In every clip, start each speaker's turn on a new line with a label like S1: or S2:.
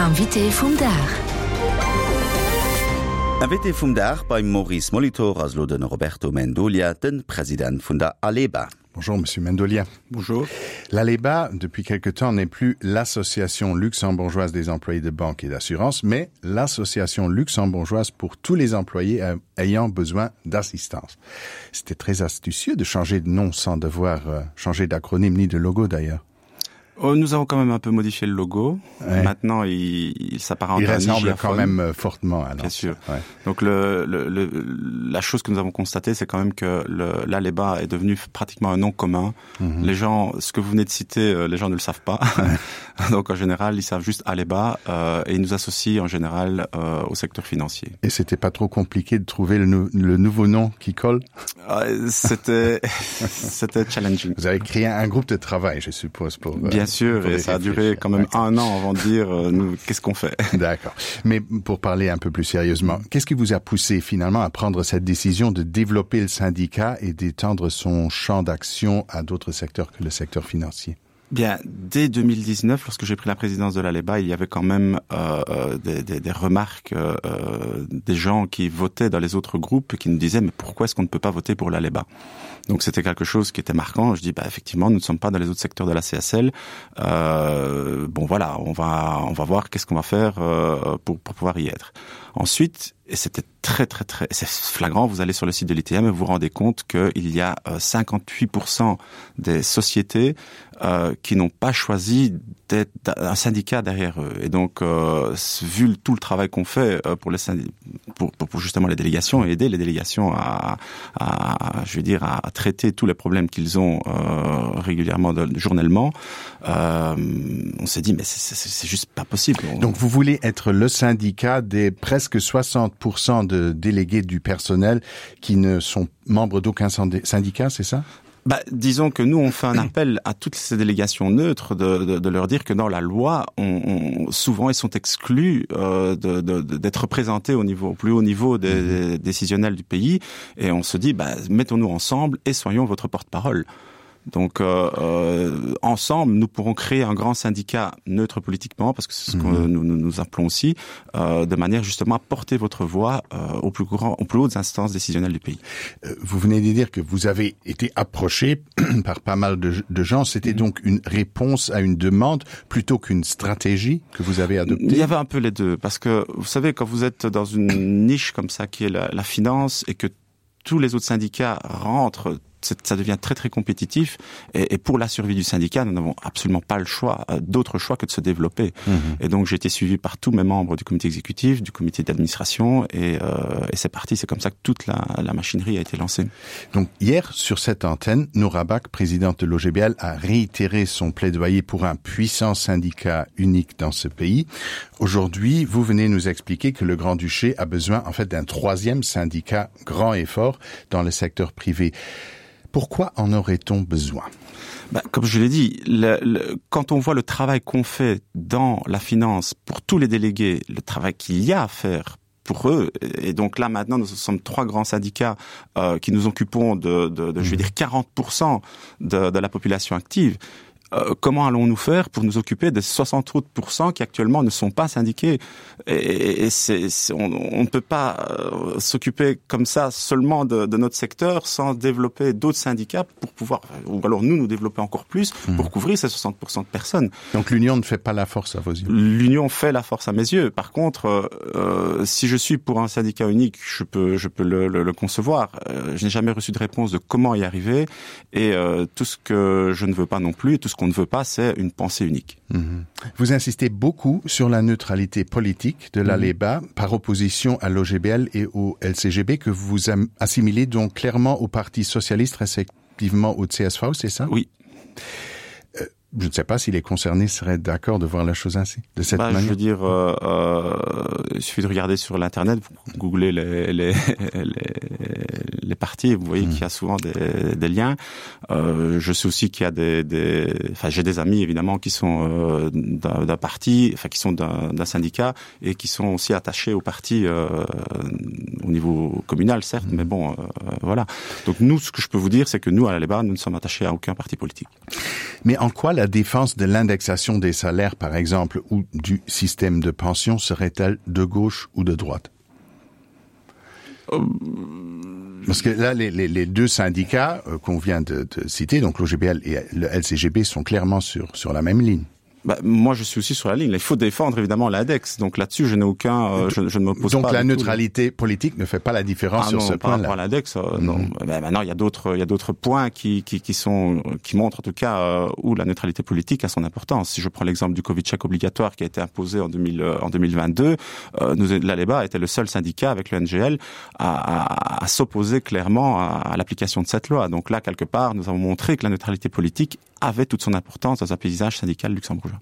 S1: Invité vum Dag.
S2: Invité vum Dag beim Maurice Molitor ass elo de Roberto Mendolia, de President vun der Aleba.
S3: Bonjour Monsieur Mendolia.
S4: Bonjour.
S3: L'Aleba, depuis quelque temps, n'est plus l'association luxembourgeoise des employés de banque et d'assurance, mais l'association luxembourgeoise pour tous les employés euh, ayant besoin d'assistance. C'était très astucieux de changer de nom sans devoir euh, changer d'acronyme ni de logo d'ailleurs.
S4: Oh, nous avons quand même un peu modifié le logo. Ouais. Maintenant, il, il s'apparente
S3: il ressemble quand même euh, fortement à
S4: Bien sûr. Ouais. Donc le, le, le, la chose que nous avons constatée, c'est quand même que l'Aleba est devenu pratiquement un nom commun. Mm -hmm. Les gens, ce que vous venez de citer, euh, les gens ne le savent pas. Ouais. Donc en général, ils savent juste Aleba euh, et ils nous associent en général euh, au secteur financier.
S3: Et c'était pas trop compliqué de trouver le, nou le nouveau nom qui colle
S4: euh, C'était c'était challenging.
S3: Vous avez créé un groupe de travail, je suppose pour
S4: euh, Bien sûr, et ça a duré quand même un an avant de dire euh, nous qu'est-ce qu'on fait.
S3: D'accord. Mais pour parler un peu plus sérieusement, qu'est-ce qui vous a poussé finalement à prendre cette décision de développer le syndicat et d'étendre son champ d'action à d'autres secteurs que le secteur financier?
S4: Bien, dès 2019, lorsque j'ai pris la présidence de l'Aleba, il y avait quand même euh, euh, des, des, des remarques euh, euh, des gens qui votaient dans les autres groupes qui nous disaient mais pourquoi est-ce qu'on ne peut pas voter pour l'Aleba Donc c'était quelque chose qui était marquant. Je dis bah, effectivement, nous ne sommes pas dans les autres secteurs de la CSL. Euh, bon voilà, on va, on va voir qu'est-ce qu'on va faire euh, pour, pour pouvoir y être. Ensuite, et c'était très très très c'est flagrant, vous allez sur le site de l'ITM et vous vous rendez compte qu'il y a 58% euh, des sociétés euh, qui n'ont pas choisi d'être un syndicat derrière eux. Et donc euh, vu tout le travail qu'on fait euh, pour, les pour, pour, pour justement les délégations et aider les délégations à, à je veux dire à, à traiter tous les problèmes qu'ils ont euh, régulièrement de, journellement, euh, on s'est dit mais c'est juste pas possible.
S3: Donc vous voulez être le syndicat des presque 60% de délégués du personnel qui ne sont membres d'aucun syndicat, c'est ça?
S4: Bah, disons que nous on fait un appel à toutes ces délégations neutres de, de, de leur dire que dans la loi on, on, souvent ils sont exclus euh, d'être représentés au niveau au plus haut niveau des, mmh. des décisionnels du pays et on se dit bah, mettons nous ensemble et soyons votre porte-parole. Donc euh, euh, ensemble, nous pourrons créer un grand syndicat neutre politiquement, parce que c'est ce que mmh. nous, nous, nous appelons aussi, euh, de manière justement à porter votre voix euh, au plus grand, aux plus hautes instances décisionnelles du pays.
S3: Euh, vous venez de dire que vous avez été approché par pas mal de, de gens. C'était mmh. donc une réponse à une demande plutôt qu'une stratégie que vous avez adoptée
S4: Il y avait un peu les deux, parce que vous savez, quand vous êtes dans une niche comme ça qui est la, la finance et que tous les autres syndicats rentrent ça devient très très compétitif et, et pour la survie du syndicat nous n'avons absolument pas le choix euh, d'autre choix que de se développer mmh. et donc j'ai été suivi par tous mes membres du comité exécutif du comité d'administration et, euh, et c'est parti c'est comme ça que toute la, la machinerie a été lancée
S3: donc hier sur cette antenne Nourabac présidente de l'OGBL a réitéré son plaidoyer pour un puissant syndicat unique dans ce pays aujourd'hui vous venez nous expliquer que le grand duché a besoin en fait d'un troisième syndicat grand et fort dans le secteur privé pourquoi en aurait-on besoin
S4: bah, comme je l'ai dit le, le, quand on voit le travail qu'on fait dans la finance pour tous les délégués le travail qu'il y a à faire pour eux et donc là maintenant nous sommes trois grands syndicats euh, qui nous occupons de, de, de je vais mmh. dire 40 de, de la population active et Euh, comment allons-nous faire pour nous occuper des 68 qui actuellement ne sont pas syndiqués et, et c'est, c'est, on, on ne peut pas euh, s'occuper comme ça seulement de, de notre secteur sans développer d'autres syndicats pour pouvoir ou alors nous nous développer encore plus mmh. pour couvrir ces 60 de personnes.
S3: Donc l'union ne fait pas la force à vos yeux.
S4: L'union fait la force à mes yeux. Par contre, euh, euh, si je suis pour un syndicat unique, je peux, je peux le, le, le concevoir. Euh, je n'ai jamais reçu de réponse de comment y arriver et euh, tout ce que je ne veux pas non plus et tout ce qu'on ne veut pas, c'est une pensée unique.
S3: Mmh. Vous insistez beaucoup sur la neutralité politique de l'ALEBA mmh. par opposition à l'OGBL et au LCGB que vous assimilez donc clairement au Parti socialiste respectivement au CSV, c'est ça
S4: Oui.
S3: Euh, je ne sais pas si les concernés seraient d'accord de voir la chose ainsi de cette
S4: bah,
S3: manière.
S4: Je veux dire euh, euh, il suffit de regarder sur l'internet vous googlez les, les, les, les partis vous voyez mmh. qu'il y a souvent des, des liens euh, je sais aussi qu'il y a des, des enfin j'ai des amis évidemment qui sont euh, d'un parti enfin qui sont d'un syndicat et qui sont aussi attachés au parti euh, au niveau communal certes mmh. mais bon euh, voilà donc nous ce que je peux vous dire c'est que nous à la Léba nous ne sommes attachés à aucun parti politique
S3: mais en quoi la. La défense de l'indexation des salaires, par exemple, ou du système de pension serait-elle de gauche ou de droite euh, Parce que là, les, les, les deux syndicats euh, qu'on vient de, de citer, donc l'OGBL et le LCGB, sont clairement sur, sur la même ligne.
S4: Bah, moi je suis aussi sur la ligne il faut défendre évidemment l'index donc là dessus je n'ai aucun euh, je, je ne m'oppose
S3: donc la neutralité tout. politique ne fait pas la différence ah, sur
S4: non,
S3: ce point
S4: là l'index euh, mm -hmm. ben, maintenant il y a d'autres il y a d'autres points qui, qui, qui sont qui montrent en tout cas euh, où la neutralité politique a son importance si je prends l'exemple du covid check obligatoire qui a été imposé en 2000 euh, en 2022 euh, nous l'aleba était le seul syndicat avec le ngl à, à, à s'opposer clairement à, à l'application de cette loi donc là quelque part nous avons montré que la neutralité politique avait toute son importance dans un paysage syndical luxembourgeois.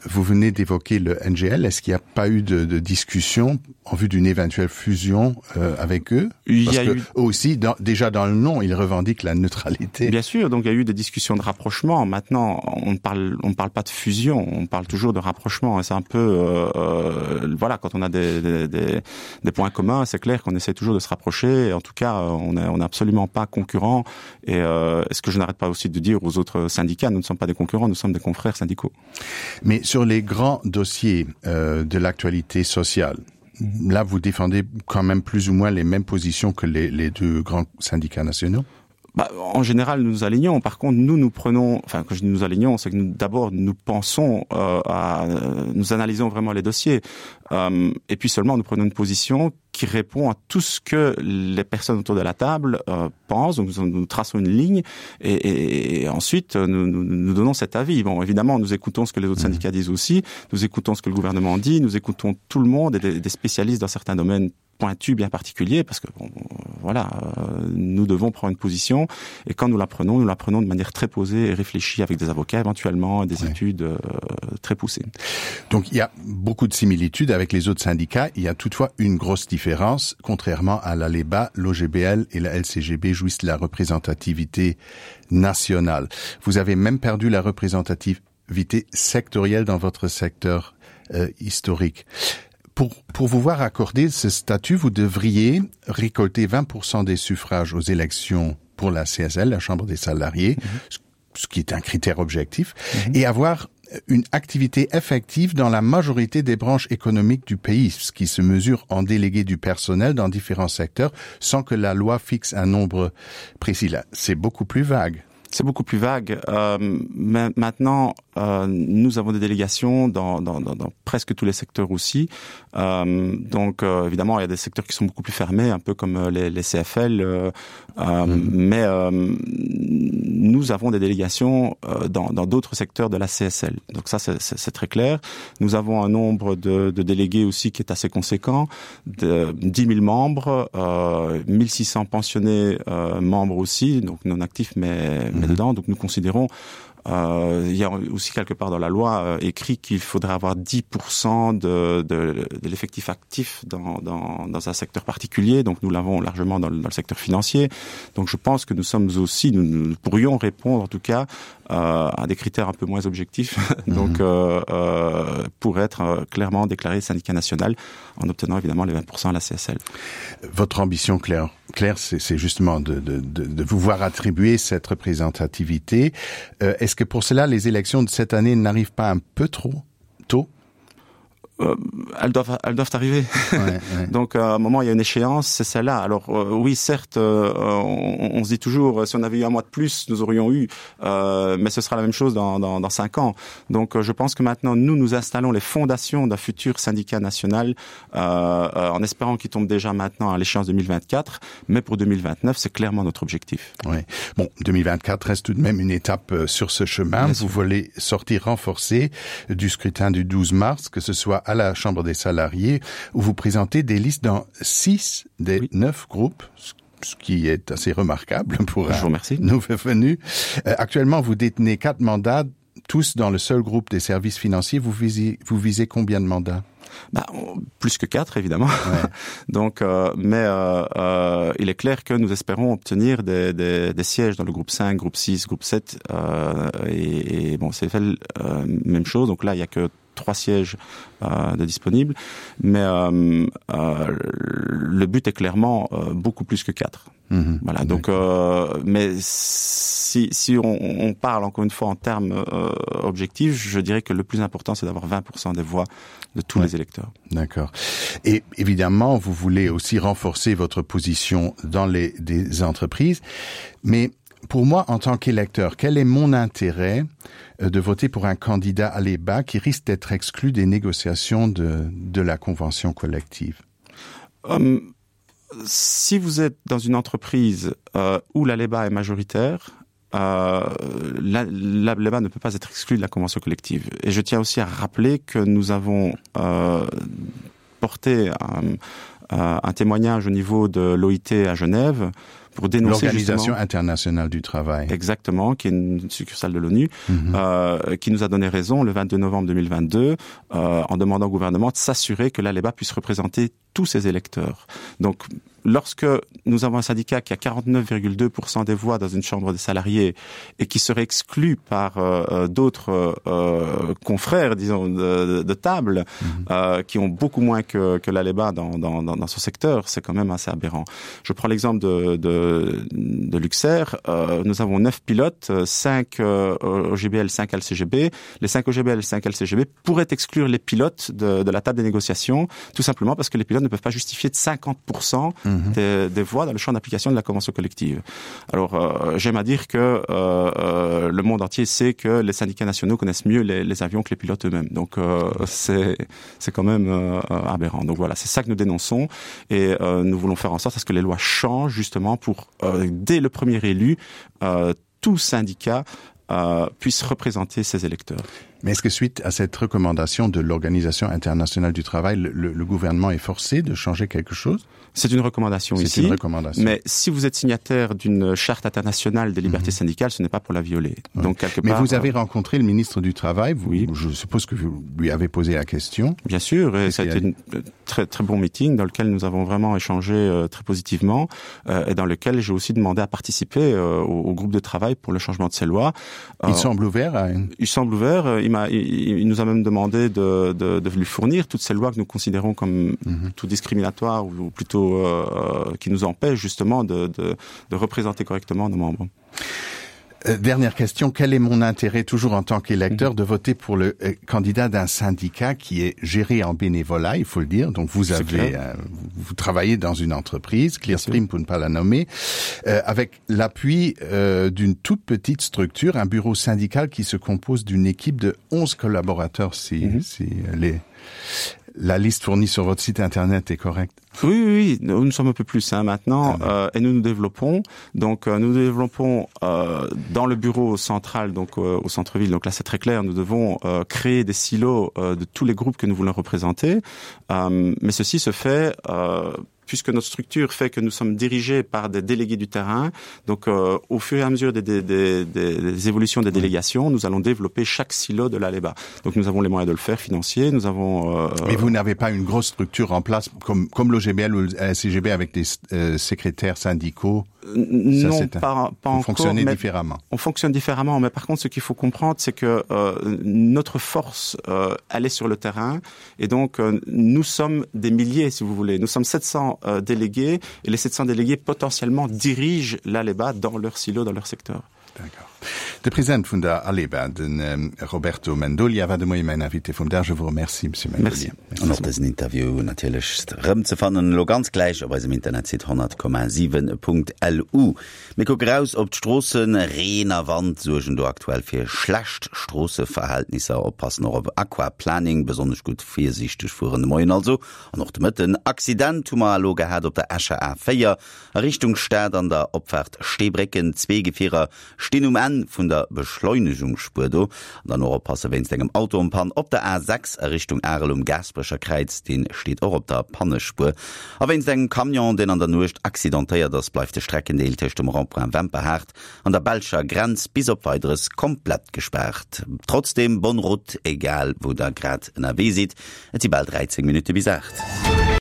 S3: Vous venez d'évoquer le NGL. Est-ce qu'il n'y a pas eu de, de discussion en vue d'une éventuelle fusion euh, avec eux
S4: il
S3: Parce
S4: y a
S3: que,
S4: eu...
S3: aussi dans, déjà dans le nom, ils revendiquent la neutralité.
S4: Bien sûr, donc il y a eu des discussions de rapprochement. Maintenant, on ne parle, on parle pas de fusion, on parle toujours de rapprochement. C'est un peu euh, euh, voilà, quand on a des, des, des, des points communs, c'est clair qu'on essaie toujours de se rapprocher. En tout cas, on n'est on est absolument pas concurrent. Et euh, ce que je n'arrête pas aussi de dire aux autres syndicats, nous ne sommes pas des concurrents, nous sommes des confrères syndicaux.
S3: Mais sur les grands dossiers euh, de l'actualité sociale, là vous défendez quand même plus ou moins les mêmes positions que les, les deux grands syndicats nationaux
S4: Bah, en général nous nous alignons par contre nous nous prenons enfin quand je dis nous alignons c'est que nous d'abord nous pensons euh, à nous analysons vraiment les dossiers euh, et puis seulement nous prenons une position qui répond à tout ce que les personnes autour de la table euh, pensent donc nous, nous traçons une ligne et, et, et ensuite nous, nous, nous donnons cet avis bon évidemment nous écoutons ce que les autres mmh. syndicats disent aussi nous écoutons ce que le gouvernement dit nous écoutons tout le monde et des, des spécialistes dans certains domaines pointu bien particulier parce que bon, voilà euh, nous devons prendre une position et quand nous la prenons nous la prenons de manière très posée et réfléchie avec des avocats éventuellement des oui. études euh, très poussées
S3: donc il y a beaucoup de similitudes avec les autres syndicats il y a toutefois une grosse différence contrairement à la leba l'ogbl et la lcgb jouissent de la représentativité nationale vous avez même perdu la représentativité sectorielle dans votre secteur euh, historique pour, pour vous voir accorder ce statut, vous devriez récolter 20% des suffrages aux élections pour la CSL, la Chambre des salariés, mm -hmm. ce qui est un critère objectif, mm -hmm. et avoir une activité effective dans la majorité des branches économiques du pays, ce qui se mesure en délégué du personnel dans différents secteurs sans que la loi fixe un nombre précis. Là, c'est beaucoup plus vague.
S4: C'est beaucoup plus vague. Euh, mais maintenant, euh, nous avons des délégations dans, dans, dans, dans presque tous les secteurs aussi. Euh, donc euh, évidemment, il y a des secteurs qui sont beaucoup plus fermés, un peu comme euh, les, les CFL. Euh, euh, mmh. Mais euh, nous avons des délégations euh, dans d'autres secteurs de la CSL. Donc ça, c'est très clair. Nous avons un nombre de, de délégués aussi qui est assez conséquent, de 10 000 membres, euh, 1600 pensionnés euh, membres aussi, donc non actifs mais, mais mmh. dedans. Donc nous considérons Euh, il y a aussi quelque part dans la loi euh, écrit qu'il faudrait avoir 10% de, de, de l'effectif actif dans, dans, dans un secteur particulier donc nous l'avons largement dans le, dans le secteur financier donc je pense que nous sommes aussi nous, nous pourrions répondre en tout cas euh, à des critères un peu moins objectifs donc mm -hmm. euh, euh, pour être euh, clairement déclaré syndicat national en obtenant évidemment les 20% à la CSL
S3: votre ambition claire claire c'est justement de, de, de, de vous voir attribuer cette représentativité euh, est-ce que pour cela les élections de cette année n'arrivent pas un peu trop tôt
S4: euh, elles doivent elles doivent arriver ouais, ouais. donc euh, à un moment il y a une échéance c'est celle là alors euh, oui certes euh, on, on se dit toujours si on avait eu un mois de plus nous aurions eu euh, mais ce sera la même chose dans, dans, dans cinq ans donc euh, je pense que maintenant nous nous installons les fondations d'un futur syndicat national euh, euh, en espérant qu'il tombe déjà maintenant à l'échéance 2024 mais pour 2029 c'est clairement notre objectif
S3: ouais. bon 2024 reste tout de même une étape euh, sur ce chemin Bien vous sûr. voulez sortir renforcé du scrutin du 12 mars que ce soit à la chambre des salariés où vous présentez des listes dans six des oui. neuf groupes ce qui est assez remarquable pour
S4: un
S3: nouveau venu. Euh, actuellement, vous détenez quatre mandats, tous dans le seul groupe des services financiers. Vous visez, vous visez combien de mandats
S4: bah, plus que quatre évidemment ouais. donc euh, mais euh, euh, il est clair que nous espérons obtenir des, des, des sièges dans le groupe 5 groupe 6 groupe 7 euh, et, et bon c'est fait euh, même chose donc là il y a que trois sièges euh, de disponibles mais euh, euh, le but est clairement euh, beaucoup plus que quatre mmh, voilà donc euh, mais si, si on, on parle encore une fois en termes euh, objectifs je dirais que le plus important c'est d'avoir 20 des voix de tous ouais. les électeurs
S3: d'accord et évidemment vous voulez aussi renforcer votre position dans les des entreprises mais pour moi en tant qu'électeur quel est mon intérêt euh, de voter pour un candidat à l'EBA qui risque d'être exclu des négociations de, de la convention collective
S4: um, si vous êtes dans une entreprise euh, où la l'EBA est majoritaire euh, la, la l'EBA ne peut pas être exclu de la convention collective et je tiens aussi à rappeler que nous avons euh, porté un, euh, un témoignage au niveau de l'OIT à Genève pour dénoncer
S3: l'organisation internationale du travail
S4: exactement qui est une succursale de l'ONU mm -hmm. euh, qui nous a donné raison le 22 novembre 2022 euh, en demandant au gouvernement de s'assurer que l'Aleba puisse représenter tous ses électeurs donc lorsque nous avons un syndicat qui a 49,2 des voix dans une chambre des salariés et qui serait exclu par euh, euh d'autres euh, confrères disons de, de table mm -hmm. euh, qui ont beaucoup moins que, que l'Aleba dans, dans, dans, dans ce secteur c'est quand même assez aberrant je prends l'exemple de, de, de Luxair euh, nous avons neuf pilotes 5 euh, OGBL 5 LCGB les 5 OGBL 5 LCGB pourraient exclure les pilotes de, de la table des négociations tout simplement parce que les pilotes ne peuvent pas justifier de 50 mmh. des, des voies dans le champ d'application de la convention collective. Alors euh, j'aime à dire que euh, euh, le monde entier sait que les syndicats nationaux connaissent mieux les, les avions que les pilotes eux-mêmes. Donc euh, c'est quand même euh, aberrant. Donc voilà, c'est ça que nous dénonçons et euh, nous voulons faire en sorte à ce que les lois changent justement pour euh, dès le premier élu euh, tout syndicat euh, puisse représenter ses électeurs.
S3: Mais est-ce que suite à cette recommandation de l'Organisation internationale du travail, le, le, le gouvernement est forcé de changer quelque chose
S4: C'est une recommandation ici. Une recommandation. Mais si vous êtes signataire d'une charte internationale des libertés mm -hmm. syndicales, ce n'est pas pour la violer.
S3: Ouais. Donc, quelque Mais part, vous avez euh, rencontré le ministre du Travail, vous, oui. je suppose que vous lui avez posé la question.
S4: Bien sûr, et ça a été un euh, très, très bon meeting dans lequel nous avons vraiment échangé euh, très positivement euh, et dans lequel j'ai aussi demandé à participer euh, au, au groupe de travail pour le changement de ces lois.
S3: Euh, il semble ouvert à une...
S4: Il semble ouvert. Il m'a, il, il nous a même demandé de, de, de lui fournir toutes ces lois que nous considérons comme mm -hmm. tout discriminatoires ou, ou plutôt euh, qui nous empêchent justement de, de, de représenter correctement nos membres.
S3: Euh, dernière question, quel est mon intérêt toujours en tant qu'électeur de voter pour le euh, candidat d'un syndicat qui est géré en bénévolat, il faut le dire. Donc vous avez euh, vous travaillez dans une entreprise, Clearstream pour ne pas la nommer, euh, avec l'appui euh, d'une toute petite structure, un bureau syndical qui se compose d'une équipe de 11 collaborateurs si, mm -hmm. si les la liste fournie sur votre site internet est correcte.
S4: Oui, oui, oui, nous sommes un peu plus hein, maintenant ah, euh, et nous nous développons. Donc euh, nous développons euh, dans le bureau central, donc euh, au centre-ville. Donc là c'est très clair, nous devons euh, créer des silos euh, de tous les groupes que nous voulons représenter. Euh, mais ceci se fait euh, puisque notre structure fait que nous sommes dirigés par des délégués du terrain donc euh, au fur et à mesure des, des, des, des, des évolutions des délégations nous allons développer chaque silo de l'Aleba donc nous avons les moyens de le faire financier nous avons
S3: euh, mais vous n'avez pas une grosse structure en place comme comme l'OGBL ou le CGB avec des euh, secrétaires syndicaux
S4: non Ça, pas, pas
S3: encore fonctionner différemment
S4: on fonctionne différemment mais par contre ce qu'il faut comprendre c'est que euh, notre force euh, elle est sur le terrain et donc euh, nous sommes des milliers si vous voulez nous sommes 700 euh, délégués et les 700 délégués potentiellement dirigent l'Aleba dans leur silo dans leur secteur
S3: D'accord. De President vun der Aleba, den ähm, Roberto Mendolia war de Moie mäin Invité vum Dag. Je vous remercie, Monsieur Mendolia.
S2: Merci. An och dësen Interview natierlech rëm ze fannen elo ganz gläich op eisem Internetsite 100,7.lu. Mir kucke raus op d'Stroossen. Reen a Wand suergen do aktuell fir schlecht Stroosseverhältnisser. Oppassen och op Aquaplaning, besonnesch gutt virsiichteg fueren de Moien also an och de Mëtten. Accident hu mer elo gehat op der Escher A4 A Richtung Stad an der Opfaart Steebrécken, zwee Gefierer stinn um Enn vun der Beschleunegungsspuer do. An dann och oppasse wéinst engem Auto en Panne op der A6 a Richtung Arel um Gaasperecher Kräiz, dee steet och op der Pannespuer. A wéinst engem Camion, deen an der Nuecht accidentéiert ass, bleift de Streckendeel tëscht dem Rond-point Wemperhaart an der belscher Grenz bis op Weideres komplett gespaart. Trotzdeem bonne route, egal wou der grad ënnerwee sidd. Et si bal 13 Minutte bis 8.